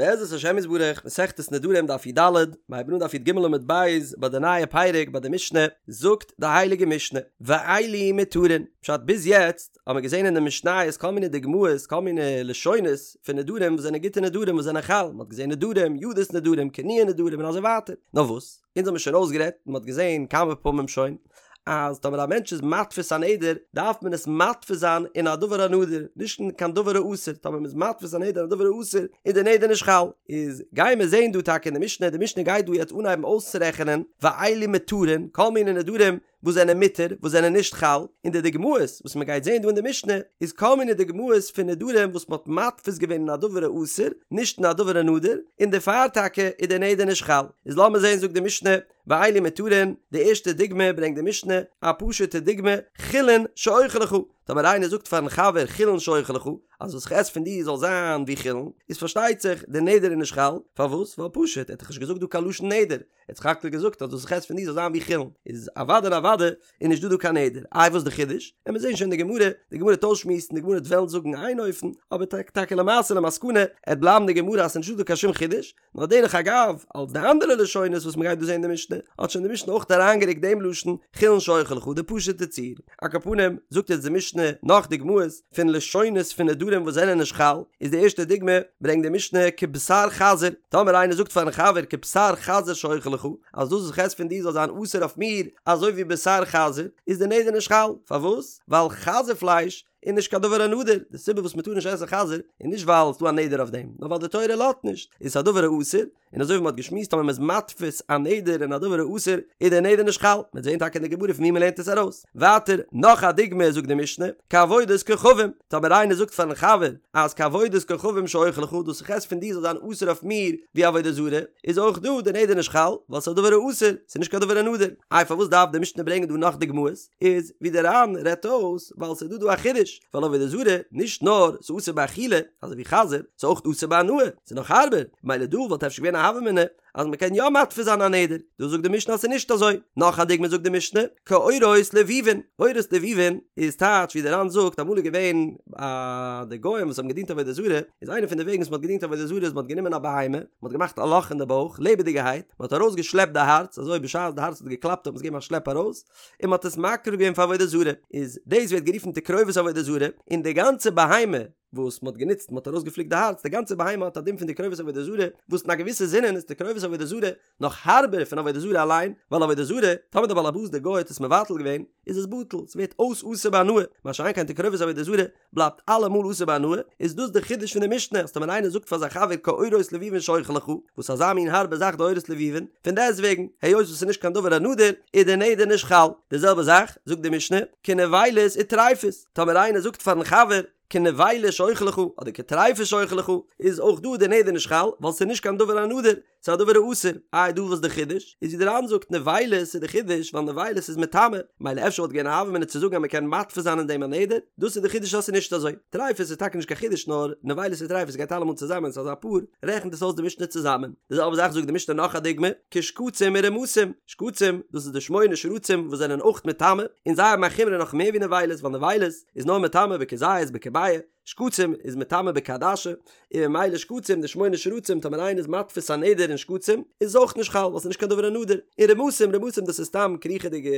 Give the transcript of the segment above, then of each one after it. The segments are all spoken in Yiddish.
בעזרת השם יתברך, מסכת נדרים דף י"ד, מיר הייבן אן דף י"ג עמוד ב' ביי די נייע פרק ביי די משנה, זאגט די הייליגע משנה, ואלו מותרין, פשט ביז יעצט האבן מיר געזען אין די משניות כל מיני דוגמאות כל מיני לשונות פון נדרים וואס זענען גוטע נדרים וואס זענען חל, מען האט געזען נדרים, ידות נדרים, כינויי נדרים און אזוי ווייטער, נאר וואס? אונז האבן מיר שוין אויסגערעדט און מען האט געזען כמה פעמים שוין, אז טאמער א מענטש איז מתפיס א נדר דארף מען עס מתפיס זיין אין א דבר הנדור, נישט אין קיין דבר האסור, טאמער מען איז מתפיס א נדר אין א דבר האסור איז די נדר נישט חל. איז גייען מיר זען דא טאקע אין די משנה, די משנה גייט דא יעצט אנהייבן אויסצורעכענען ואלו מותרין, כל מיני נדרים וואס זענען מותר, וואס זענען נישט חל, און די דוגמאות וואס מען גייט זען דא אין די משנה איז כל מיני דוגמאות פון נדרים וואס מען האט מתפיס געווען אין א דבר האסור, נישט אין א דבר הנדור, און דערפאר טאקע איז די נדר נישט חל. איז לאמיר זען זאגט די משנה, ואלו מותרין, די ערשטע דוגמא ברענגט די משנה, א פשוטע דוגמא, חולין שאוכל לך, טאמער איינער זאגט פארן חבר חולין שאוכל לך, אז וואס איך עס פון דיר זאל זיין ווי חולין, איז פארשטייט זיך די נדר איז נישט חל, פארוואס? ווייל פשוט, ער האט דאך נישט געזאגט דא קיין לשון נדר, ער האט סך הכל געזאגט אז וואס איך עס פון דיר זאל זיין ווי חולין, איז אוודאי און אוודאי איז נישט דא דא קיין נדר, איי וואס די חידוש? עמיר זעהן שוין די גמרא, די גמרא וועט אויסשמועסן, די גמרא וועט וועלן זאגן איין אופן, אבער טאקע למעשה למסקנא, עט בלייבן די גמרא אז ס'איז נישט דא דא קיין שום חידוש, נאר דרך אגב, אלס די אנדערע לשונות וואס מ'גייט דא זעהן אין די משנה, האט שוין די משנה אויך אריינגערוקט דעם לשון חולין שאוכל לך, די פשוט'ע ציור. על כל פנים, זאגט יעצט די משנה נאך דוגמאות פון לשונות פון נדרים וואס זענען נישט חל, איז די ערשטע דוגמא, ברענגט די משנה כבשר חזיר, טאמער איינער זאגט פארן חבר כבשר חזיר שאוכל לך, אז דאס וואס איך עס פון דיר זאל זיין אסור אויף מיר אזוי ווי בשר חזיר, איז די נדר נישט חל, פארוואס? ווייל חזיר פלייש איז נישט קיין דבר הנדור, די סיבה וואס מ'טאר נישט עסן חזיר איז נישט ווייל ס'דא א נדר אויף דעם, נאר ווייל די תורה לאזט נישט, איז עס א דבר האסור, און אזוי ווי מ'האט געשמועסט טאמער מ'איז מתפיס א נדר אין א דבר האסור איז דער נדר נישט חל, מ'וועט זען טאקע אין די גמרא פון ווי מ'לערנט עס ארויס. ווייטער, נאך א דוגמא זאגט די משנה, כעבודת כוכבים, טאמער איינער זאגט פארן חבר אז כעבודת כוכבים שאוכל לך, דאס איך עס פון דיר זאל זיין אסור אויף מיר ווי עבודה זרה, איז אויך דא דער נדר נישט חל, ווייל ס'איז א דבר האסור, ס'איז נישט קיין דבר הנדור. איי פארוואס דארף די משנה ברענגען דא נאך דוגמאות? איז ווי דער ר"ן רעדט אויס ווייל ס'איז דא דא א חידוש ווייל עבודה זרה נישט נאר ס'איז אסור באכילה אזוי ווי חזיר ס'איז אויך אסור בהנאה ס'איז נאך הארבער מילא דא וואלט אפשר געווען א הוה אמינא אז מ'קען יא מתפיס זיין א נדר דא זאגט די משנה אז ס'איז נישט אזוי נאך א דוגמא זאגט די משנה כעורות לבובין עורות לבובין איז טייטש ווי דער ר"ן זאגט אמאל איז געווען א די גוים וואס האבן געדינט עבודה זרה איז איינע פון די וועגן וואס מ'האט געדינט עבודה זרה איז מ'האט גענומען א בהמה מ'האט געמאכט א לאך אין די בויך לעבעדיגערהייט מ'האט ארויס געשלעפט די הארץ אזוי בשעת די הארץ האט געקלאפט האט מען עס געגעבן א שלעפ ארויס און מ'האט עס מקריב געווען פאר עבודה זרה, איז דאס ווערט גערופן תקרובת עבודה זרה, און די גאנצע בהמה וואס מ'האט גענוצט, מ'האט ארויסגעפליקט די הארץ, די גאנצע בהמה האט א דין פון תקרובת עבודה זרה, וואס אין א געוויסע זינען איז תקרובת עבודה זרה נאך הארבער פון עבודה זרה אליין, ווייל עבודה זרה, טאמער דער בעל הבית דער גוי האט עס מבטל געווען, איז עס בטל, ס'ווערט אויס אסור בהנאה, מה שאין כן תקרובת עבודה זרה, בלייבט אלעמאל אסור בהנאה, איז דאס די חידוש פון די משנה אז טאמער איינער זאגט פאר זיין חבר כעורות לבובין שאוכל לך, וואס אזא מין הארבע זאך די עורות לבובין, פון דעסטוועגן, היות וואס ס'איז נישט קיין דבר הנדור, איז די נדר נישט חל. די זעלבע זאך, זאגט די משנה, כנבילות וטריפות, טאמער איינער זאגט פארן חבר, כנבילה שאוכל לך, אדער כטריפה שאוכל לך, איז אויך דא די נדר נישט חל, ווייל ס'איז נישט קיין דבר הנדור, ס'איז א דבר האסור, איי דא וואס די חידוש? איז ווי די ר"ן זאגט נבילות איז די חידוש ווייל נבילות איז מטמא, מילא אפשר וואלט געווען א הוה אמינא צו זאגן אז מ'קען מתפיס זיין אין דעם א נדר, דאס איז די חידוש אז ס'איז נישט אזוי. טריפות איז טאקע נישט קיין חידוש נאר נבילות און טריפות גייט אלעמאל צוזאמען ס'איז אזא פאר, רעכנט עס אויס די משנה צוזאמען. די זעלבע זאך זאגט די משנה נאך א דוגמא, כשקצים ורמשים, שקצים דאס איז די שמונה שרצים וואס זענען אויך מטמא, און זיי האבן א חומרא נאך מער ווי נבילות ווייל נבילות איז נאר מטמא בכזית בכביעה, שקצים איז מטמא בכעדשה, און ממילא שקצים די שמונה שרצים טאמער איינער איז מתפיס א נדר אין שקצים איז עס אויך נישט חל ווייל ס'איז נישט קיין דבר הנדור, און רמשים רמשים דאס איז סתם קריכעדיגע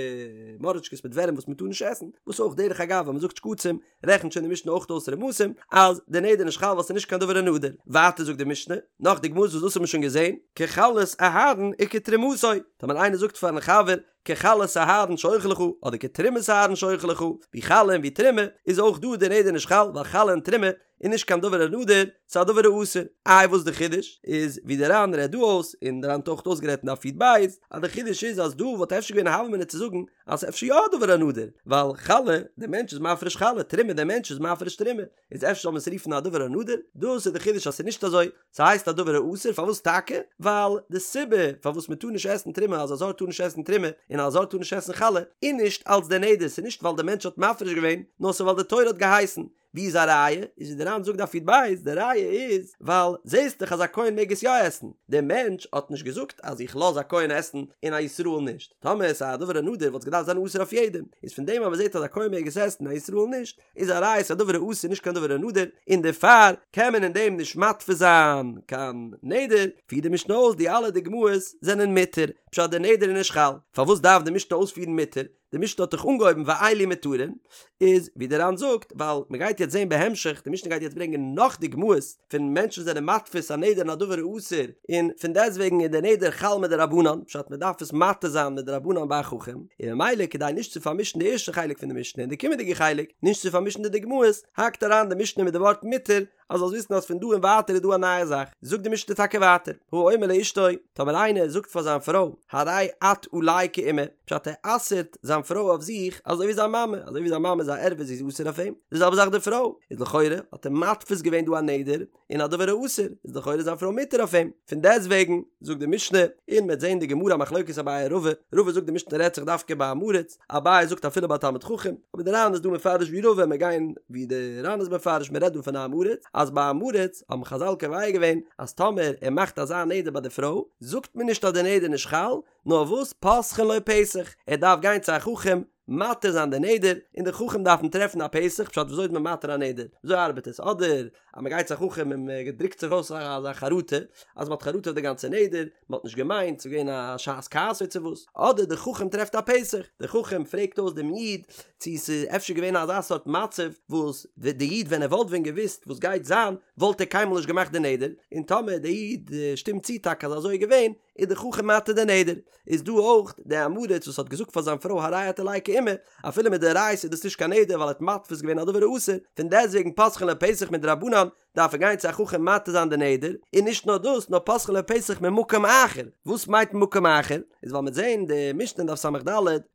מוראשקעס מיט ווערים וואס מ'טאר נישט עסן, וואס אויך דרך אגב ווען מ'זאגט שקצים רעכנט שוין די משנה אויך אויס רמשים אז די נדר איז נישט חל ווייל ס'איז נישט קיין דבר הנדור. ווייטער זאגט די משנה נאך דוגמאות וואס דאס האט מען שוין געזען, כחלת אהרן וכתרומתו, טאמער איינער זאגט פארן חבר כחלת אהרן שאוכל לך, אדער כתרומת אהרן שאוכל לך, ווי חלה און ווי תרומה, איז אויך דא די נדר נישט חל, ווייל חלה און תרומה איז נישט קיין דבר הנדור, ס'איז א דבר האסור. איי וואס די חידוש? איז ווי די ר"ן רעדט דא אויס, און די ר"ן האט אויך אויסגערעדט אין דף י"ב, אז די חידוש איז אז דא וואלט אפשר געווען א הוה אמינא צו זאגן אז ס'איז אפשר יא א דבר הנדור, ווייל חלה, די מענטש איז מפריש חלה, תרומה, די מענטש איז מפריש תרומה, איז אפשר זאל מען עס רופן א דבר הנדור? דאס איז די חידוש אז ס'איז נישט אזוי, ס'הייסט א דבר האסור, פארוואס טאקע? ווייל די סיבה פארוואס מ'טאר נישט עסן תרומה אז א זר טאר נישט עסן תרומה און א זר טאר נישט עסן חלה איז נישט אלס די נדר, ס'איז נישט ווייל די מענטש האט מפריש געווען, נאר ס'איז ווייל די תורה האט געהייסן. ווי איז א ראיה? איז ווי די ר"ן זאגט דף י"ב, די ראיה איז ווייל זעסט דאך אז א כהן מעג עס יא עסן, דער מענטש האט נישט געזאגט אז איך לאז א כהן עסן און א ישראל נישט, טאמער עס איז א דבר הנדור וואלט עס געדארפט זיין אסור אויף יעדעם, איז פון דעם אז מען זעט אז א כהן מעג עס עסן און א ישראל נישט, איז א ראיה ס'איז א דבר האסור נישט קיין דבר הנדור, און דערפאר קען מען אין דעם נישט מתפיס זיין קיין נדר, פירט די משנה אויס די אלע דוגמאות זענען מותר, פשט די נדר איז נישט חל, פארוואס דארף די משנה אויספירן מותר? די משנה האט דאך אנגעהויבן ואלו מותרין, איז ווי דער ר"ן זאגט, ווייל מען גייט יעצט זען בהמשך, די משנה גייט יעצט ברענגען נאך דוגמאות פון מענטשן זענען מתפיס א נדר אין א דבר האסור, און פון דעסטוועגן איז דער נדר חל מדרבנן, פשט מען דארף עס מתיר זיין מדרבנן ביי א חכם, און ממילא כדי נישט צו פארמישן די ערשטע חלק פון די משנה און די קומענדיגע חלק, נישט צו פארמישן די דוגמאות, האקט אריין די משנה מיט די ווארט מותר, אז זאלסט וויסן אז פון דא און ווייטער איז דא א נייע זאך, זאגט די משנה טאקע ווייטער, האומר לאשתו, טאמער איינער זאגט פאר זיין פרוי, הרי את עלי כאמא, פשט ער אסר'ט זיין פרוי אויף זיך אזוי ווי זיין מאמע, אזוי ווי זיין מאמע איז א ערווה זי איז אסור אויף אים, די זעלבע זאך די פרוי, איז לכאורה האט ער מתפיס געווען דא א נדר אין א דבר האסור, איז לכאורה זיין פרוי מותר אויף אים, פון דעסטוועגן זאגט די משנה, און מ'וועט זען די גמרא מחלוקת אביי רבא, רבא זאגט די משנה רעדט זיך דווקא ביי עם הארץ, אביי זאגט אפילו ביי תלמיד חכם, אבער די ר"ן איז דא מפרש ווי רבא, מיר גייען ווי די ר"ן איז מפרש, מען רעדט דא פון א עם הארץ, אז ביי עם הארץ האבן חז"ל קובע געווען אז טאמער ער מאכט אזא נדר ביי די פרוי, זאגט מען נישט אז די נדר איז נישט חל, נאר וואס פותחין לו פתח, ער דארף גיין צו א חכם מתיר זיין די נדר, און די חכם דארפן טרעפן א פתח, פשט וויאזוי איז מען מתיר א נדר, וויאזוי ארבעט עס, אדער אז מען גייט צו א חכם און מען דרוקט זיך אויס אזא חרטה, אז מען האט חרטה אויף די גאנצע נדר, מען האט נישט געמיינט, ס'איז געווען א שעת כעס צו וואס, אדער די חכם טרעפט א פתח, די חכם פרעגט אויס דעם איד צו ס'איז אפשר געווען אזא סארט מצב וואס די איד ווען ער וואלט ווען געוואוסט וואס גייט זיין וואלט ער קיינמאל נישט געמאכט די נדר, און טאמער די איד שטימט צו טאקע אז אזוי איז געווען, איז די חכם מתיר די נדר. איז דא אויך די עם הארץ וואס האט געזאגט פאר זיין פרוי הרי את עלי כאמא, אפילו מדאורייתא איז דאס נישט קיין נדר ווייל ער האט מתפיס געווען א דבר האסור, פון דעסטוועגן פותחין לו פתח מדרבנן דארף ער גיין צו א חכם מתיר זיין די נדר, און נישט נאר דאס נאר פותחין לו פתח ממקום אחר, וואס מיינט ממקום אחר? איז ווייל מ'עט זעהן די משנה אין דף ס"ד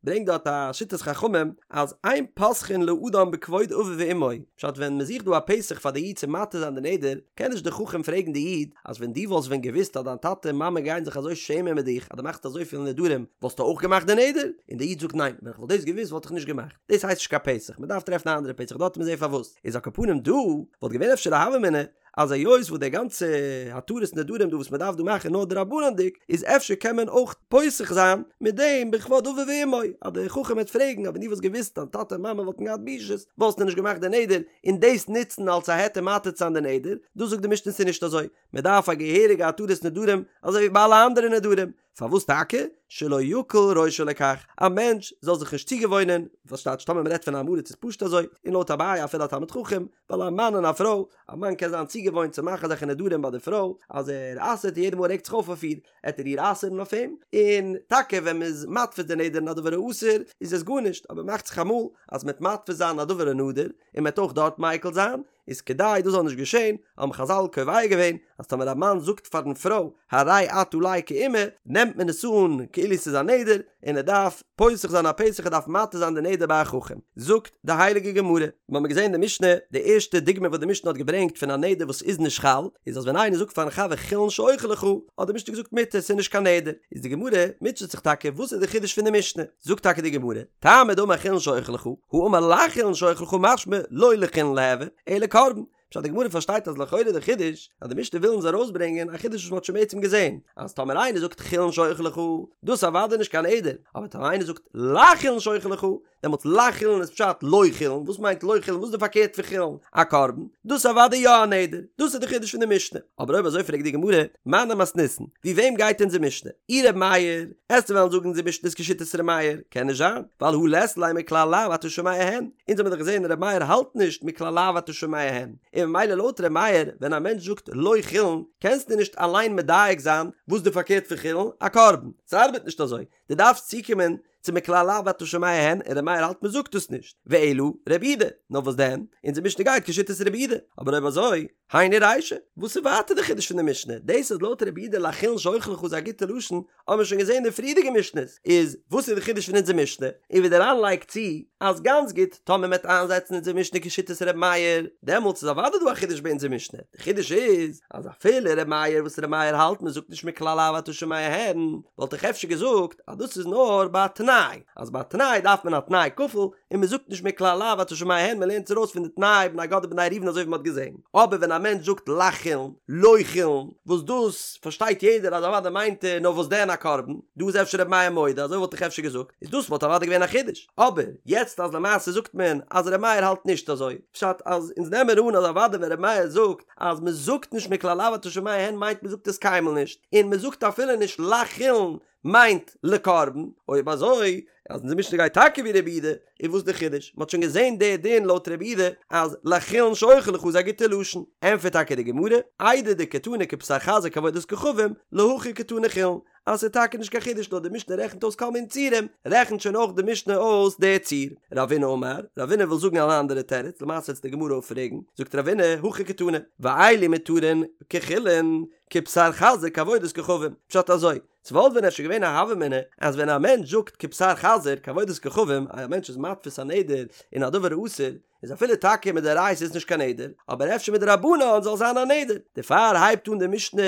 ברענגט דארט א שיטת חכמים אז אין פותחין לאדם בכבוד אביו ואמו, פשט ווען מ'זוכט דא א פתח פאר די איד צו מתיר זיין די נדר, קען נישט די חכם פרעגן די איד אז ווען דו וואלסט ווען געוואוסט אז דיין טאטע און מאמע גייען זיך אזוי שעמען מיט דיך אז דו מאכסט אזויפיל נדרים וואלסטו אויך געמאכט די נדר? און די איד זאגט ניין ווען איך וואלט דאס געוואוסט וואלט איך נישט געמאכט, דאס הייסט נישט קיין פתח, מ'דארף טרעפן א אנדערע פתח דארט וועט מען זעהן פארוואס. איז על כל פנים דא וואלט געווען אפשר א הוה אמינא אז היות וואס די גאנצע התרת נדרים דא וואס מען דארף דא מאכן נאר דרבנן'דיג איז אפשר קען מען אויך פותח זיין מיט דעם בכבוד אביו ואמו אז דער חכם וועט פרעגן אז ווען דו וואלסט געוואוסט דיין טאטע און מאמע וואלטן געהאט בושות וואלסטו נישט געמאכט די נדר און דאס נוצן אלס א היתר מתיר צו זיין די נדר דא זאגט די משנה ס'איז נישט אזוי מען דארף א געהעריגע התרת נדרים אזוי ווי ביי אלע אנדערע נדרים פארוואס טאקע? שלא יקל ראשו לכך, א מענטש זאל זיך נישט צוגעוואוינען, וואס טייטש טאמער מ'רעדט פון עם הארץ איז פשוט אזוי, און לויט אביי אפילו א תלמיד חכם, ווייל א מאן און א פרוי, א מאן קען זיין צוגעוואוינט צו מאכן אזעלכע נדרים ביי די פרוי, אז ער אסר'ט און יעדע מאל ער רעגט זיך אויף אויף איר, עט ער איר אסר'ן אויף אים, און טאקע ווען מ'איז מתפיס די נדר אין א דבר האסור, איז עס גארנישט, אבער מאכט זיך אמאל אז מ'עט מתפיס זיין א דבר הנדור, און מ'עט אויך דארט מיקל זיין, איז כדי דאס זאל נישט געשען, האבן חז"ל קובע געווען אז טאמער א מאן זאגט פארן פרוי הרי את עלי כאמא, נעמט מען עס אן כאילו ס'איז א נדר, און ער דארף פותח זיין א פתח ער דארף מתיר זיין די נדר ביי א חכם. זאגט די הייליגע גמרא, מיר האבן געזען אין די משנה, די ערשטע דוגמא וואס די משנה האט געברענגט פון א נדר וואס איז נישט חל, איז אז ווען איינער זאגט פארן חבר חולין שאוכל לך, האט די משנה געזאגט מותר ס'איז נישט קיין נדר, איז די גמרא מוטשעט זיך טאקע וואס איז די חידוש פון די משנה, זאגט טאקע די גמרא, טעמא דאמר חולין שאוכל לך, הא אמר לחולין שאוכל לך משמע לא לחולין ליהוי, אלא קרבן. פשט די גמרא פארשטייט אז לכאורה די חידוש אז די משנה וויל אונז ארויסברענגען א חידוש וואס מ'האט שוין בעצם געזען אז טאמער איינער זאגט חולין שאוכל לך דאס אוודאי נישט קיין נדר אבער טאמער איינער זאגט לחולין שאוכל לך דעמאלטס לחולין איז פשט לא חולין וואס מיינט לא חולין וואס איז די פארקערט פון חולין א קרבן דאס אוודאי יא א נדר דאס איז די חידוש פון די משנה אבער אויב אזוי פרעגט די גמרא מני מתניתין ווי וועם גייט אונזער משנה אי ר' מאיר עסטו וועלן זאגן אונזער משנה איז כשיטת ר' מאיר קען נישט זיין ווייל הא לית ליה מכלל לאו אתה שומע הן אונז האבן דאך געזען ר' מאיר האלט נישט מכלל לאו אתה שומע הן, און ממילא לויט ר' מאיר ווען א מענטש זאגט לא חולין קענסטו נישט אליין מדייק זיין וואס די פארקערט פון חולין, א קרבן, ס'ארבעט נישט אזוי, דו דארפסט צוקומען צו מכלל לאו אתה שומע הן, און ר' מאיר האלט מ'זאגט דאס נישט, ואלא רבי יהודה, נאר וואס דען, אונזער משנה גייט כשיטת רבי יהודה, אבער אויב אזוי. היינו רישא, וואס איז ווייטער די חידוש פון די משנה? דאס אז לויט רבי יהודה לחולין שאוכל לך איז א גוטע לשון, האבן מיר שוין געזען אין די פריערדיגע משנה'ס, איז וואס איז די חידוש פון אונזער משנה? און ווי דער ר"ן לייגט צו, אז גאנץ גוט, טאמער מ'עט איינזעצן אונזער משנה כשיטת ר' מאיר, דעמאלטס איז אוודאי דא א חידוש ביי אונזער משנה, די חידוש איז, אז אפילו ר' מאיר וואס ר' מאיר האלט מ'זאגט נישט מכלל לאו אתה שומע הן, וואלט איך אפשר געזאגט אז דאס איז נאר ביי א תנאי, אז ביי א תנאי דארף מען א תנאי כפול, און מען זאגט נישט מכלל לאו אתה שומע הן, מען לערנט עס ארויס פון די תנאי בני גד ובני ראובן אזוי ווי מען האט געזען. אבער ווען א מענטש זאגט לחולין, לא חולין, וואס דאס פארשטייט יעדער אז אוודאי מיינט ער נאר וואס דען א קרבן, דא איז אפשר ר' מאיר מודה, אזוי וואלט איך אפשר געזאגט, איז דאס וואלט אוודאי געווען א חידוש. אבער יעצט אז למעשה זאגט מען אז ר' מאיר האלט נישט אזוי, פשט אז אונז נעמען אן אז אוודאי ווען ר' מאיר זאגט אז מען זאגט נישט מכלל לאו אתה שומע הן מיינט מען זאגט עס קיינמאל נישט, און מען זאגט אפילו נישט לחולין מיינט לקרבן, אויב אזוי אז אונזער משנה גייט טאקע ווי רבי יהודה, איז וואס די חידוש? מ'האט שוין געזען די דין לויט רבי יהודה אז לחולין שאוכל לך איז א גוטע לשון, ענטפערט טאקע די גמרא, איידי דקתני כבשר חזיר כעבודת כוכבים, להכי קתני חולין, אז ס'איז טאקע נישט קיין חידוש נאר די משנה רעכנט אויס כל מיני ציורים, רעכנט שוין אויך די משנה אויס די ציור. רבינא אמר, רבינא וויל זאגן אן אנדערע תירוץ, למעשה וועט די גמרא אפפרעגן, זאגט רבינא, הכי קתני, ואלו מותרין כחולין, כבשר חזיר כעבודת כוכבים, פשט אזוי, ס'וואלט ווען אפשר געווען א הוה אמינא אז ווען א מענטש זאגט כבשר חזיר כעבודת כוכבים אז א מענטש איז מתפיס א נדר אין א דבר האסור איז אפילו טאקע מדאורייתא איז נישט קיין נדר אבער אפשר מדרבנן זאל זיין א נדר דערפאר הייבט אן די משנה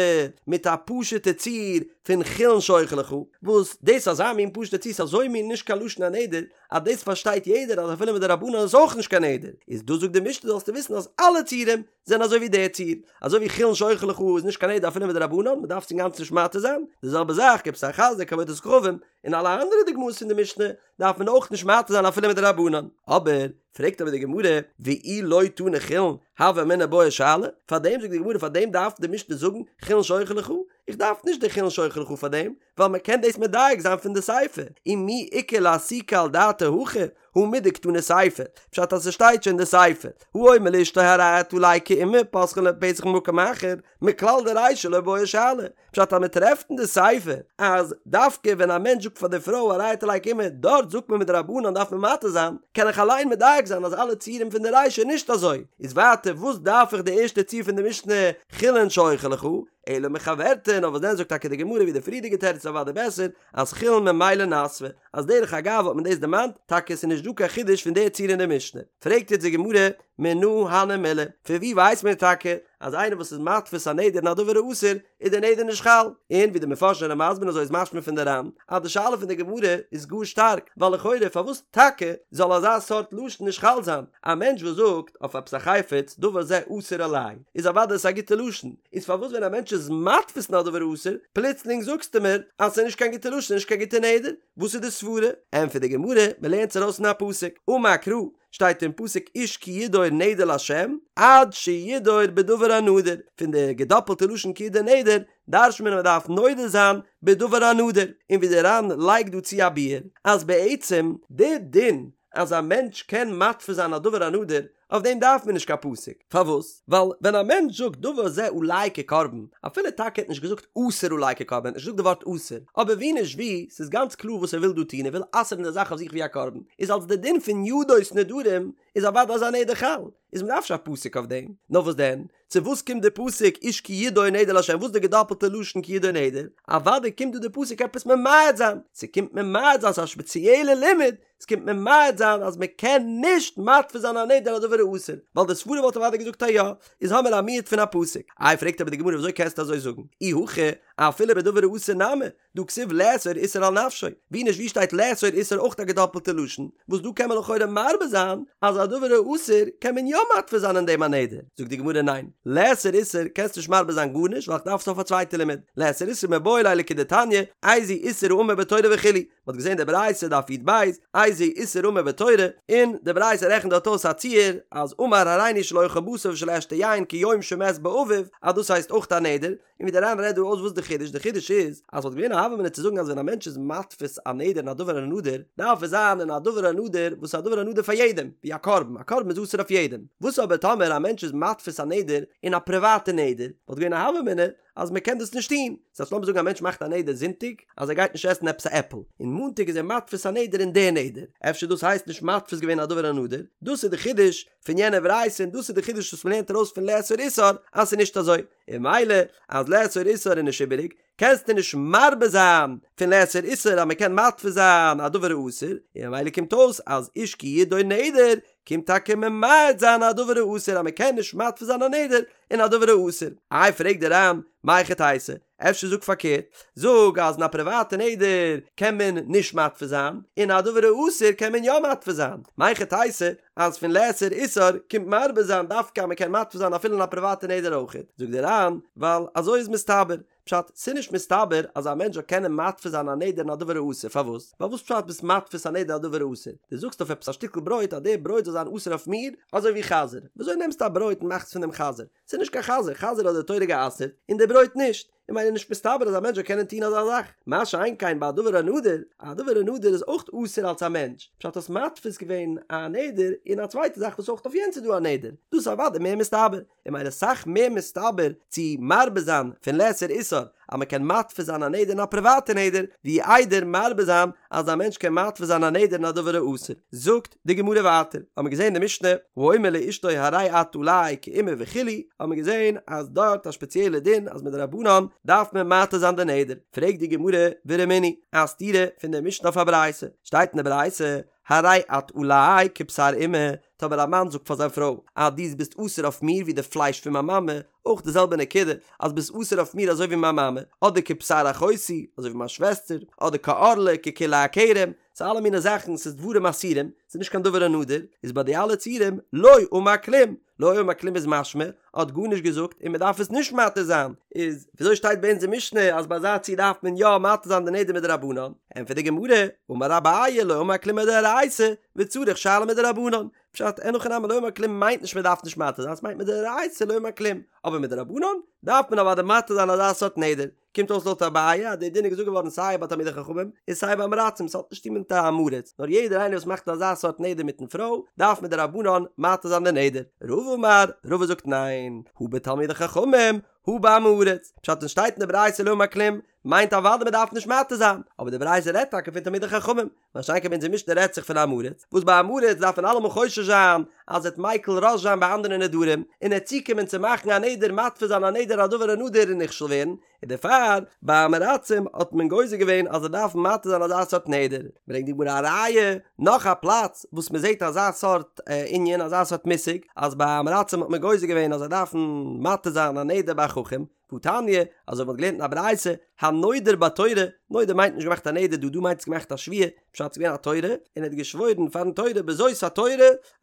מיט א פשוטע ציור פון חולין שאוכל לך וואס דאס אזא מין פשוטע ציור ס'איז אזוי מין נישט קיין לשון הנדר אז דאס פארשטייט יעדער אז אפילו מדרבנן איז אויך נישט קיין נדר איז דא זאגט די משנה זאלסטו וויסן אז אלע ציורים זענען אזוי ווי דער ציור, אזוי ווי חולין שאוכל לך איז נישט קיין נדר אפילו מדרבנן, מען דארף עס אינגאנצן נישט מתיר זיין, די זעלבע זאך כבשר חזיר כעבודת כוכבים, און אלע אנדערע דוגמאות פון די משנה דארף מען אויך נישט מתיר זיין אפילו מדרבנן. אבער, פרעגט אבער די גמרא, ואי לא תנא חולין, הוה אמינא בעי שאלה, פארדעם זאגט די גמרא פארדעם דארף די משנה זאגן חולין שאוכל לך, איך דארף נישט די חולין שאוכל לך פאר דעם, ווייל מען קען דאס מדייק זיין פון די סיפא, ומי איכא לאסוקי על דעתיה הכא, הא מדקתני סיפא, פשט אז ס'שטייט שוין די סיפא, האומר לאשתו הרי את עלי כאימא פותחין לו פתח ממקום אחר, מכלל דרישא לא בעי שאלה, פשט אז מ'טרעפט אין די סיפא אז דווקא ווען א מענטש זאגט פאר די פרוי הרי את עלי כאימא דארט זאגט מען מדרבנן דארף מען מתיר זיין, קען איך אליין מדייק זיין אז אלע ציורים פון די רישא איז נישט אזוי, איז ווייטער וואס דארף איך די ערשטע ציור פון די משנה חולין שאוכל לך, אלא מחוורתא, נאר וואס דען זאגט טאקע די גמרא ווי די פריערדיגע תירוץ איז אוודאי בעסער, אז חולין ממילא נסבה, אז דרך אגב האט מען דאס דערמאנט, טאקע עס איז נישט דא קיין חידוש פון די ציור אין די משנה. פרעגט יעצט די גמרא, מנא הני מילי, פון ווי ווייסט מען טאקע אז איינער וואס איז מתפיס א נדר אין א דבר האסור איז די נדר נישט חל? און ווי די מפרשים זענען מסביר אזוי איז משמע פון די ר"ן אז די שאלה פון די גמרא איז גאר שטארק, ווייל לכאורה פארוואס טאקע זאל אזא סארט לשון נישט חל זיין? א מענטש וואס זאגט אויף עפעס א חפץ דבר זה אסור עלי איז אוודאי עס א גוטע לשון, איז פארוואס ווען א מענטש איז מתפיס אין א דבר האסור פלוצלינג זאגסטו מיר אז ס'איז נישט קיין גוטע לשון נישט קיין גוטע נדר? וואס איז די סברה? ענטפערט די גמרא, מ'לערנט עס ארויס פון א פסוק, אמר קרא, שטייט אין פסוק איש כי ידור נדר לה' עד שידור בדבר הנדור, פון די געדאפלטע לשון כי ידור נדר דרש'נט מען אז מ'דארף נודר זיין בדבר הנדור, און ווי די ר"ן לייגט דא צו א ביאור אז בעצם די דין אז א מענטש קען מתפיס זיין א דבר הנדור אויף דעם דארף מען נישט קיין פסוק, פארוואס? ווייל ווען א מענטש זאגט דבר זה עלי כקרבן, אפילו טאקע ער האט נישט געזאגט אסור עלי כקרבן, ער האט נישט געזאגט די ווארט אסור, אבער ווי נישט ווי, ס'איז גאנץ קלאר וואס ער וויל דא טון, ער וויל אסר'ן די זאך אויף זיך ווי א קרבן, איז אלס די דין פון ידות נדרים איז אוודאי אזא נדר חל, איז מ'דארף נישט א פסוק אויף דעם, נאר וואס דען? צו וואס קומט די פסוק איש כי ידור נדר לה' וואס די געדאפלטע לשון כי ידור נדר? אוודאי קומט דא די פסוק עפעס ממעט זיין, ס'קומט ממעט זיין ס'איז א שפעציעלע לימוד, ס'קומט ממעט זיין אז מ'קען נישט מתפיס זיין א נדר א דבר האסור, ווייל די סברא וואלט אוודאי געזאגט אז יא, איז האמיר א מיעוט פון א פסוק. איי פרעגט אבער די גמרא וויאזוי קענסטו אזוי זאגן? אי הכי אפילו בדבר האסור נמי, דהא כתיב לאסור איסור על נפשו, ווי נישט ווי שטייט לאסור איסור אויך א געדאפלטע לשון, וואס דא קען מען לכאורה מרבה זיין אז א דבר האסור קען מען יא מתפיס זיין אין דעם א נדר, זאגט די גמרא ניין, לאסור איסור קענסט נישט מרבה זיין גארנישט ווייל איך דארף עס אויף א צווייטע לימוד, לאסור איסור מיבעי ליה לכדתניא, איזהו איסור האמור בתורה וכו', מען האט געזען די ברייתא דף י"ב, איזהו איסור האמור בתורה, און די ברייתא רעכנט דארט אויס א ציור אז אמר הריני שלא אוכל בשר ושלא אשתה יין כיום שמת בו אביו, אז דאס הייסט אויך א נדר, און ווי דער ר"ן רעדט דא אויס וואס די חידוש, די חידוש איז אז וואלט געווען א הוה אמינא צו זאגן אז ווען א מענטש איז מתפיס א נדר אין א דבר הנדור, דארף עס זיין אין א דבר הנדור וואס איז א דבר הנדור פאר יעדעם, ווי א קרבן, א קרבן איז אסור אויף יעדעם, וואס אבער טאמער א מענטש איז מתפיס א נדר אין א פריוואטע נדר, וואלט געווען א הוה אמינא. אז מען קען דאס נישט טון, ס'הייסט לאמיר זאגן א מענטש מאכט א נדר זונטאג אז ער גייט נישט עסן עפעס א עפל, און מאנטאג איז ער מתפיס א נדר אין די נדר, אפשר דאס הייסט נישט מתפיס געווען א דבר הנדור, דאס איז די חידוש פון יענע ברייתא און דאס איז די חידוש וואס מען לערנט ארויס פון לאסור איסור אז ס'איז נישט אזוי, און ממילא אז לאסור איסור איז נישט איבעריג, קענסטו נישט מרבה זיין פון לאסור איסור אז מען קען מתפיס זיין א דבר האסור, און ממילא קומט אויס אז איש כי ידור נדר קומט טאקע ממעט זיין א דבר האסור אז מען קען נישט מתפיס זיין א נדר אין א דבר האסור. איי פרעגט דער ר"ן, מהיכי תיתי, אפשר זאג פארקערט, זאג אז אין א פריוואטע נדר קען מען נישט מתפיס זיין, אין א דבר האסור קען מען יא מתפיס זיין, מהיכי תיתי אז פון לאסור איסור קומט מרבה זיין דווקא אז מען קען מתפיס זיין אפילו אין א פריוואטע נדר אויכעט, זאגט דער ר"ן, ווייל אזוי איז מסתבר, פשט, ס'איז נישט מסתבר אז א מענטש זאל קענען מתפיס זיין א נדר אין א דבר האסור, פארוואס? ווייל וואס פשט ביסט מתפיס א נדר א דבר האסור? דו זאגסט אויף עפעס א שטיקל ברויט אז די ברויט זאל זיין אסור אויף מיר, אזוי ווי חזיר, וויאזוי נעמסטו א ברויט און מאכסט פון דעם חזיר? ס'איז נישט קיין חזיר, חזיר האט די תורה גע'אסר'ט, און די ברויט נישט. און ממילא נישט מסתבר אז א מענטש זאל קענען טון אזא זאך, מה שאין כן ביי א דבר הנדור, א דבר הנדור איז אויך אסור אלס א מענטש, פשט האסט מתפיס געווען א נדר אין א צווייטע זאך וואס אויך אויף יענץ איז דא א נדר, דאס איז אוודאי מער מסתבר, און ממילא אסאך מער מסתבר צו מרבה זיין פון לאסור איסור אז מען קען מתפיס זיין א נדר אין א פריוואטע נדר, ווי איידער מרבה זיין אז א מענטש קען מתפיס זיין א נדר אין א דבר האסור. זאגט די גמרא ווייטער, האט מען געזען די משנה, האומר לאשתו הרי את עלי כאמא וכו', האט מען געזען אז דארט א שפעציעלע דין אז מדרבנן דארף מען מתיר זיין די נדר, פרעגט די גמרא ורמינהי, א סתירה פון די משנה אויף א ברייתא, שטייט אין די ברייתא, הרי את עלי כבשר אמא, טאמער א מאן זאגט פאר זיין פרוי אז דו ביסט אסור אויף מיר ווי די פלייש פון מיין מאמע, אויך די זעלבע נקודה, אז ביסט אסור אויף מיר אזוי ווי מיין מאמע, אדער כבשר אחותי, אזוי ווי מיין שוועסטער, אדער כערלה, ככלאי הכרם, ס'איז אלע מיני זאכן, ס'איז דברים אסורים, ס'איז נישט קיין דבר הנדור, איז ביי די אלע ציורים, לא אמר כלום, לא אמר כלום איז משמע, האט גארנישט געזאגט און מ'דארף עס נישט מתיר זיין, איז וויאזוי שטייט ביי אונז אין משנה אז ביי אזא ציור דארף מען יא מתיר זיין די נדר מדרבנן? ענטפערט די גמרא, אמר אביי לא אמר כלום מדאורייתא, וצריך שאלה מדרבנן, פשט, אין הכי נמי לא אמר כלום מיינט נישט מ'דארף נישט מתיר זיין, ס'מיינט מדאורייתא לא אמר כלום, אבער מדרבנן דארף מען אוודאי מתיר זיין אזא סארט נדר, קומט אויס לויט אביי אז די דין איז געזאגט געווארן סיי ביי תלמידי חכמים און סיי ביי עם הארצים, ס'האט נישט צוטון מיט א עם הארץ, נאר יעדער איינער וואס מאכט אזא סארט נדר מיטן פרוי דארף מדרבנן מתיר זיין די נדר. רבא אמר, רבא זאגט ניין, הא בתלמידי חכמים, הא בעם הארץ, פשט ווען שטייט אין די ברייתא לא אמר כלום, מיינט אוודאי מ'דארף נישט מתיר זיין, אבער די ברייתא רעדט טאקע פון תלמידי חכמים, מה שאין כן ביי אונזער משנה רעדט זיך פון עם הארץ, וואס ביי עם הארץ דארף מען אלעמאל חושש זיין אז ער וועט מיקל ראש זיין ביי אנדערע נדרים, און ער וועט צוקומען צו מאכן א נדר מתפיס זיין א נדר א דבר הנדור און נכשל ווערן, און דערפאר ביי עם הארצים האט מען גוזר געווען אז זיי דארפן מתיר זיין אזא סארט נדר. ברענגט די גמרא א ראיה, נאך א פלאץ וואס מען זעט אזא סארט ענין, אזא סארט מושג, אז ביי עם הארצים האט מען גוזר געווען אז זיי דארפן מתיר זיין א נדר ביי א חכם, והתניא, אזוי ווי מ'האט געלערנט אין א ברייתא, הנודר בתורה, נודר מיינט נישט געמאכט א נדר דא, דא מיינט עס געמאכט א שבועה, פשט ס'איז געווען א תורה, און ער האט געשוואוירן פארן תורה בזאת התורה,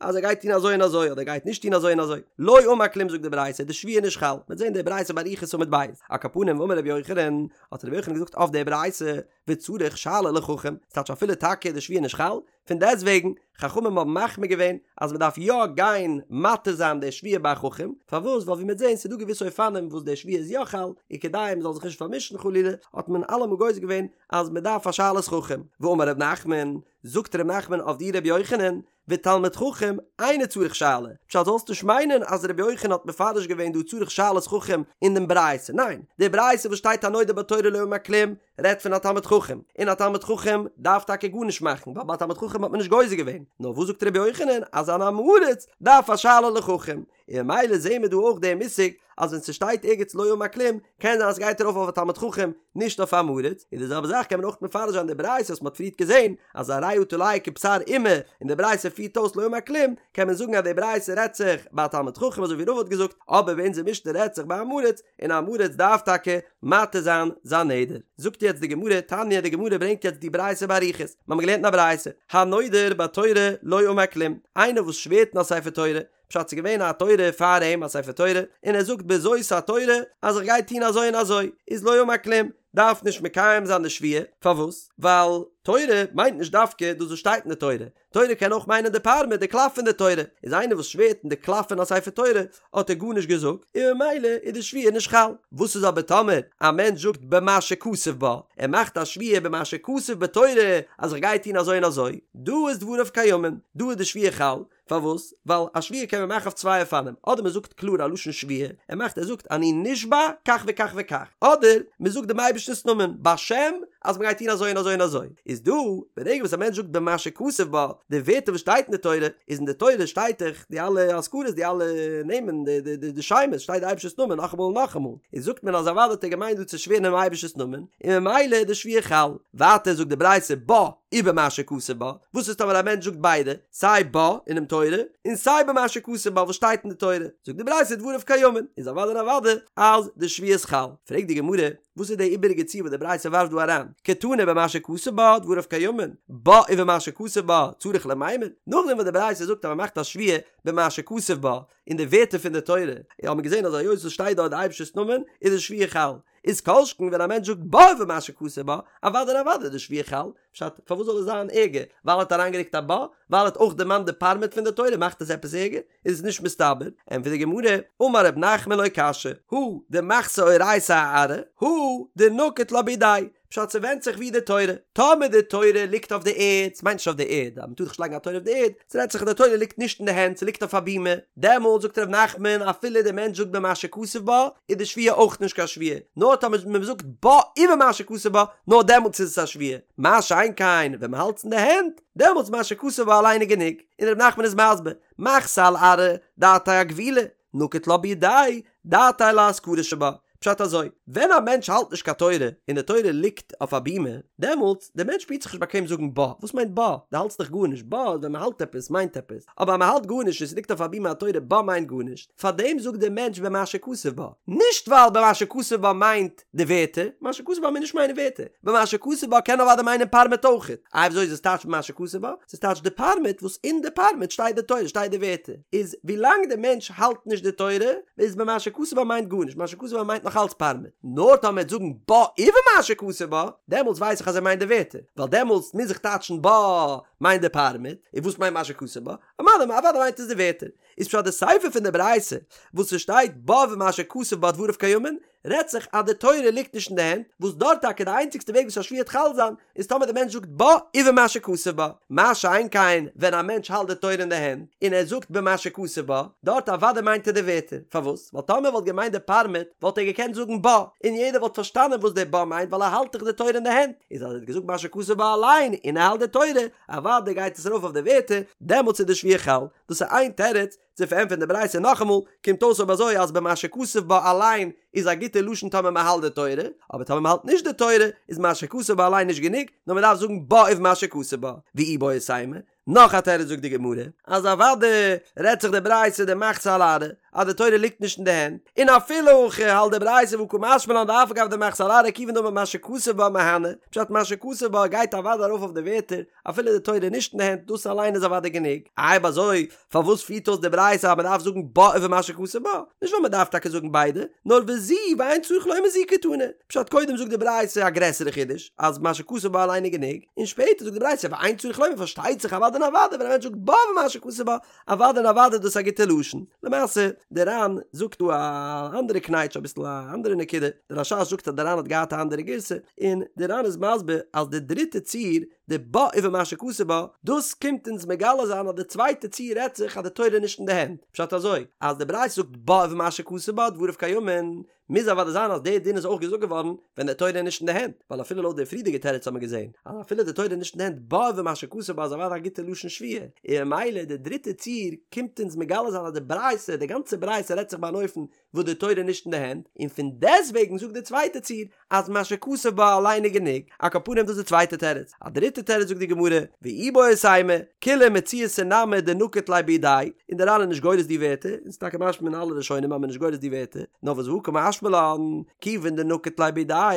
אז ער גייט טון אזוי און אזוי, אדער גייט נישט טון אזוי און אזוי. לא אמר כלום זאגט די ברייתא, די שבועה איז נישט חל. מ'וועט זען די ברייתא באריכות עמוד ב'. על כל פנים ואמר רבי יוחנן, האט רבי יוחנן געזאגט אויף די ברייתא, וצריך שאלה לחכם, ס'טייטש אפילו טאקע איז די שבועה נישט חל, פון דעסטוועגן, חכמים האבן מחמיר געווען אז מען דארף יא גיין מתיר זיין די שבועה ביי א חכם, פארוואס? ווייל ווי מ'וועט זען ס'איז דא געוויסע אופנים וואס די שבועה איז יא חל, און כדי מען זאל זיך נישט פארמישן חלילה, האט מען אלעמאל גוזר געווען אז מען דארף א שאלת חכם. ואמר ר' נחמן, זאגט ר' נחמן אויף די ר' יוחנן, ותלמיד חכם אינו צריך שאלה, פשט זאלסט נישט מיינען אז ר' יוחנן האט מפרש געווען דא צריך שאלת חכם אין דעם ברייתא, ניין, די ברייתא וואס שטייט הנודר בתורה לא אמר כלום, רעדט פון א תלמיד חכם, און א תלמיד חכם דארף טאקע גארנישט מאכן, ווייל ביי א תלמיד חכם האט מען נישט גוזר געווען, נאר וואס זאגט רבי יוחנן אז אן עם הארץ דארף א שאלה לחכם, און ממילא זעהן מיר דא אויך דעם מושג אז ווען ס'שטייט ערגעץ לא אמר כלום, קען זיין אז ס'גייט ארויף אויף א תלמיד חכם, נישט אויף עם הארץ, און די זעלבע זאך קען מען אויך מפרש זיין די ברייתא וואס מ'האט פריערט געזעהן אז הרי את עלי כבשר אמא, און די ברייתא פירט אויס לא אמר כלום, קען מען זאגן אז די ברייתא רעדט זיך ביי א תלמיד חכם אזוי ווי רבא האט געזאגט, אבער ביי אונזער משנה רעדט זיך ביי עם הארץ, און עם הארץ דארף טאקע מתיר זיין זיין נדר. זאגט יעצט די גמרא, תניא, די גמרא ברענגט יעצט די ברייתא באריכות, מיר האבן געלערנט אין א ברייתא, הנודר בתורה לא אמר כלום, איינער וואס שווערט אין א ספר תורה, פשט ס'איז געווען א תורה פאר אים א ספר תורה, און ער זאגט בזאת התורה אז איך גיי טון אזוי און אזוי, איז לא אמר כלום, דארף נישט מקיים זיין די שבועה, פארוואס? ווייל תורה מיינט נישט דווקא דאס וואס שטייט אין די תורה, תורה קען אויך מיינען די פארמעט, די קלף פון די תורה, איז איינער וואס שווערט אין די קלף פון א ספר תורה האט ער גארנישט געזאגט, און ממילא איז די שבועה נישט חל. וואס איז אבער טאמער א מענטש זאגט במה שכתוב בה, ער מאכט א שבועה במה שכתוב בתורה אז איך גיי טון אזוי און אזוי, דא איז דבריו קיימין, דא איז די שבועה חל, פארוואס? ווייל א שבועה קען מען מאכן אויף צוויי אופנים, אדער מען זאגט קלאר א לשון שבועה, ער מאכט ער זאגט אני נשבע כך וכך וכך, אדער מען זאגט דעם אייבערשטנ'ס נאמען בשם אז מען גייט טון אזוי און אזוי און אזוי, איז דא ברגע וואס א מענטש זאגט במה שכתוב בה, די ווערטער וואס שטייט אין די תורה, איז אין די תורה שטייט דאך די אלע אזכרות די אלע נעמען די די די די שמות שטייט די אייבערשטער'ס נאמען נאכאמאל און נאכאמאל, איז זאגט מען אז אוודאי האט ער געמיינט דא צו שווערן אינעם אייבערשטער'ס נאמען, און ממילא איז די שבועה חל. ווייטער זאגט די ברייתא בה ובמה שכתוב בה, וואס איז טאמער א מענטש זאגט ביידע, סיי בה אינעם תורה, און סיי במה שכתוב בה וואס שטייט אין די תורה, זאגט די ברייתא דבריו קיימין, איז אוודאי און אוודאי אז די שבועה איז חל. פרעגט די גמרא, וואס איז די איבעריגע ציור וואס די ברייתא ווארפט דא אריין, קתני במה שכתוב בה דבריו קיימין, בה ובמה שכתוב בה צריך למימר, נאכדעם וואס די ברייתא זאגט אז מען מאכט א שבועה במה שכתוב בה, אין די ווערטער פון די תורה, האט מען געזען אז היות עס שטייט דארט די אייבערשטער'ס נאמען, איז די שבועה חל. איז כל שכן ווען א מענטש זאגט בה ובמה שכתוב בה, אוודאי און אוודאי איז די שבועה חל, פשט, פארוואס זאל עס זיין ערגער? ווייל ער האט אריינגערוקט א בה? ווייל ער האט אויך דערמאנט די פארמעט פון די תורה מאכט עס עפעס ערגער? איז עס נישט מסתבר, ענטפערט די גמרא, אמר רב נחמן לא קשיא, הא דמחתא אורייתא אארעא, הא דנקיט לה בידיה, פשט ס'ווענדט זיך ווי די תורה, טאמער די תורה ליגט אויף די ערד, ס'מיינט נישט אויף די ערד, אז מ'טאר דאך נישט לייגן א תורה אויף די ערד, ס'רעדט זיך אז די תורה ליגט נישט אין די הענט, ס'ליגט אויף א בימה, דעמאלט זאגט ר' נחמן אפילו די מענטש זאגט במה שכתוב בה, איז די שבועה אויך נישט קיין שבועה, נאר טאמער מ'זאגט בה ובמה שכתוב בה, נאר דעמאלטס איז עס א שבועה, מה שאין כן ווען מ'האלט עס אין די הענט, דעמאלטס מה שכתוב בה אליין איז גענוג, און ר' נחמן איז מסביר, מחתא על ארעא, דעתיה אגווילי, נקיט לה בידיה, דעתיה לאזכרה שבה. פשט אזוי, ווען א מענטש האלט נישט קיין תורה, און די תורה ליגט אויף א בימה, דעמאלטס, דער מענטש שפירט זיך נישט באקוועם זאגן בה, וואס מיינט בה? דו האלטסט דאך גארנישט, בה איז ווען מען האלט עפעס, מיינט עפעס, אבער אז מען האלט גארנישט און ס'ליגט אויף א בימה א תורה, בה מיינט גארנישט, פארדעם זאגט דער מענטש במה שכתוב בה, נישט ווייל במה שכתוב בה מיינט די ווערטער, מה שכתוב בה מיינט נישט מיינע ווערטער, במה שכתוב בה קען אוודאי מיינען פארמעט אויכעט, איי וויאזוי איז עס טייטש במה שכתוב בה? ס'איז טייטש די פארמעט וואס אין די פארמעט שטייט די תורה שטייט די ווערטער, איז ווילאנג די מענטש האלט נישט די תורה איז במה שכתוב בה מיינט גארנישט, מה שכתוב בה מיינט נאך אלץ פארמעט, נאר טאמער ער וועט זאגן בה ובמה שכתוב בה, דעמאלטס ווייס איך אז ער מיינט די ווערטער, ווייל דעמאלטס מוז איך טייטשן בה מיינט די פארמעט, און וואס מיינט מה שכתוב בה? אוודאי אוודאי מיינט עס די ווערטער. איז פשט די סיפא פון די ברייתא וואס ס'שטייט בה ובמה שכתוב בה דבריו קיימין, רעדט זיך אז די תורה ליגט נישט אין די הענט, וואס דארט טאקע די איינציגסטע וועג וואס א שבועה וועט חל זיין, איז טאמער די מענטש זאגט בה ובמה שכתוב בה, מה שאין כן ווען א מענטש האלט די תורה אין די הענט, און ער זאגט במה שכתוב בה, דארט אוודאי מיינט ער די ווערטער, פארוואס? ווייל טאמער ער וואלט געמיינט די פארמעט, וואלט ער געקענט זאגן בה, און יעדער וואלט פארשטאנען וואס די בה מיינט ווייל ער האלט דאך די תורה אין די הענט, איז אז ער האט געזאגט מה שכתוב בה אליין און ער האלט די תורה, אוודאי גייט עס ארויף אויף די ווערטער, דעמאלטס איז די שבועה חל, דאס איז איין תירוץ, צו פארענטפערן די ברייתא נאכאמאל, קומט אויס אויב אזוי אז במה שכתוב בה אליין איז א גוטע לשון טאמער מען האלט די תורה, אבער טאמער מען האלט נישט די תורה איז מה שכתוב בה אליין נישט גענוג, נאר מען דארף זאגן בה ובמה שכתוב בה, ואיבעית אימא, נאך א תירוץ זאגט די גמרא, אז אוודאי רעדט זיך די ברייתא דמחתא על ארעא, אז די תורה ליגט נישט אין די הענט, און אפילו הכי האלט די ברייתא והא קא משמע לן דאף על גב דמחתא על ארעא כיוון דאמר מה שכתוב בה מהני, פשט מה שכתוב בה גייט אוודאי ארויף אויף די ווערטער, אפילו די תורה איז נישט אין די הענט, דאס אליין איז אוודאי גענוג. אויב אזוי, פארוואס פירט אויס די ברייתא אז מען דארף זאגן בה ובמה שכתוב בה? נישט ווייל מען דארף טאקע זאגן ביידע, נאר וזו ואין צריך לומר זו קתני. פשט, קודם זאגט די ברייתא א גרעסערע חידוש, אז מה שכתוב בה אליין איז גענוג, און שפעטער זאגט די ברייתא ואין צריך לומר פארשטייט זיך אוודאי און אוודאי ווען א מענטש זאגט בה ובמה שכתוב בה, אוודאי און אוודאי איז דאס א גוטע לשון. למעשה, די ר"ן זאגט דא א אנדערע קנייטש, אביסל א אנדערע נקודה, די רש"ש זאגט אז די ר"ן האט געהאט א אנדערע גירסא, און די ר"ן איז מסביר אז די דריטע ציור, די בה ובמה שכתוב בה, דאס קומט אונז מגלה זיין אז די צווייטע ציור רעדט זיך אז די תורה איז נישט אין די הענט. פשט אזוי, אז די ברייתא זאגט בה ובמה שכתוב בה דבריו קיימין, מוז אוודאי זיין אז די דין איז אויך געזאגט געווארן ווען די תורה איז נישט אין די הענט, ווייל אפילו לויט די פריערדיגע תירוץ האט מען געזען אז אפילו די תורה איז נישט אין די הענט בה ובמה שכתוב בה איז אוודאי א גוטע לשון שבועה, און ממילא די דריטע ציור קומט אונז מגלה זיין אז די ברייתא, די גאנצע ברייתא רעדט זיך ביי אן אופן וואס די תורה איז נישט אין די הענט, און פון דעסטוועגן זאגט די צווייטע ציור אז מה שכתוב בה אליין איז גענוג, על כל פנים דאס איז די צווייטע תירוץ, א דריטע תירוץ זאגט די גמרא, ואיבעית אימא, כולה מציעתא נמי דנקיט ליה בידיה, און דער ר"ן איז נישט גורס די ווערטער, און ס'איז טאקע משמע אין אלע ראשונים אז מ'איז נישט גורס די ווערטער, נאר וואס והא קא משמע לן, כיוון דנקיט ליה בידיה,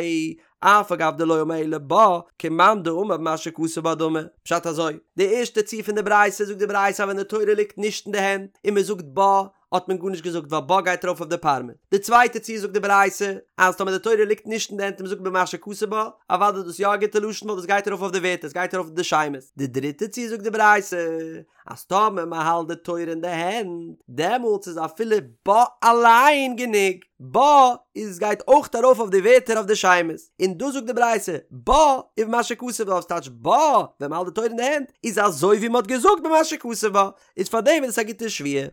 אף על גב דלא אמר אלא בה, כמאן דאמר במה שכתוב בה דמי. פשט אזוי, די ערשטע ציור פון די ברייתא זאגט די ברייתא אז ווען די תורה ליגט נישט אין די הענט, און מ'זאגט בה, האט מען גארנישט געזאגט ווייל בה גייט ארויף אויף די פארמעט. די צווייטע ציור זאגט די ברייתא אז טאמער די תורה ליגט נישט אין די הענט און מ'זאגט במה שכתוב בה, אוודאי איז דאס יא א גוטע לשון ווייל דאס גייט ארויף אויף די ווערטער, עס גייט ארויף אויף די שמות. די דריטע ציור זאגט די ברייתא אז טאמער מ'האלט די תורה אין די הענט, דעמאלטס איז אפילו בה אליין גענוג, בה איז גייט אויך ארויף אויף די ווערטער אויף די שמות, און דאס זאגט די ברייתא בה ובמה שכתוב בה, וואס טייטש בה ווען מ'האלט די תורה אין די הענט איז אזוי ווי מ'האט געזאגט במה שכתוב בה, איז פארדעם איז עס א גוטע שבועה.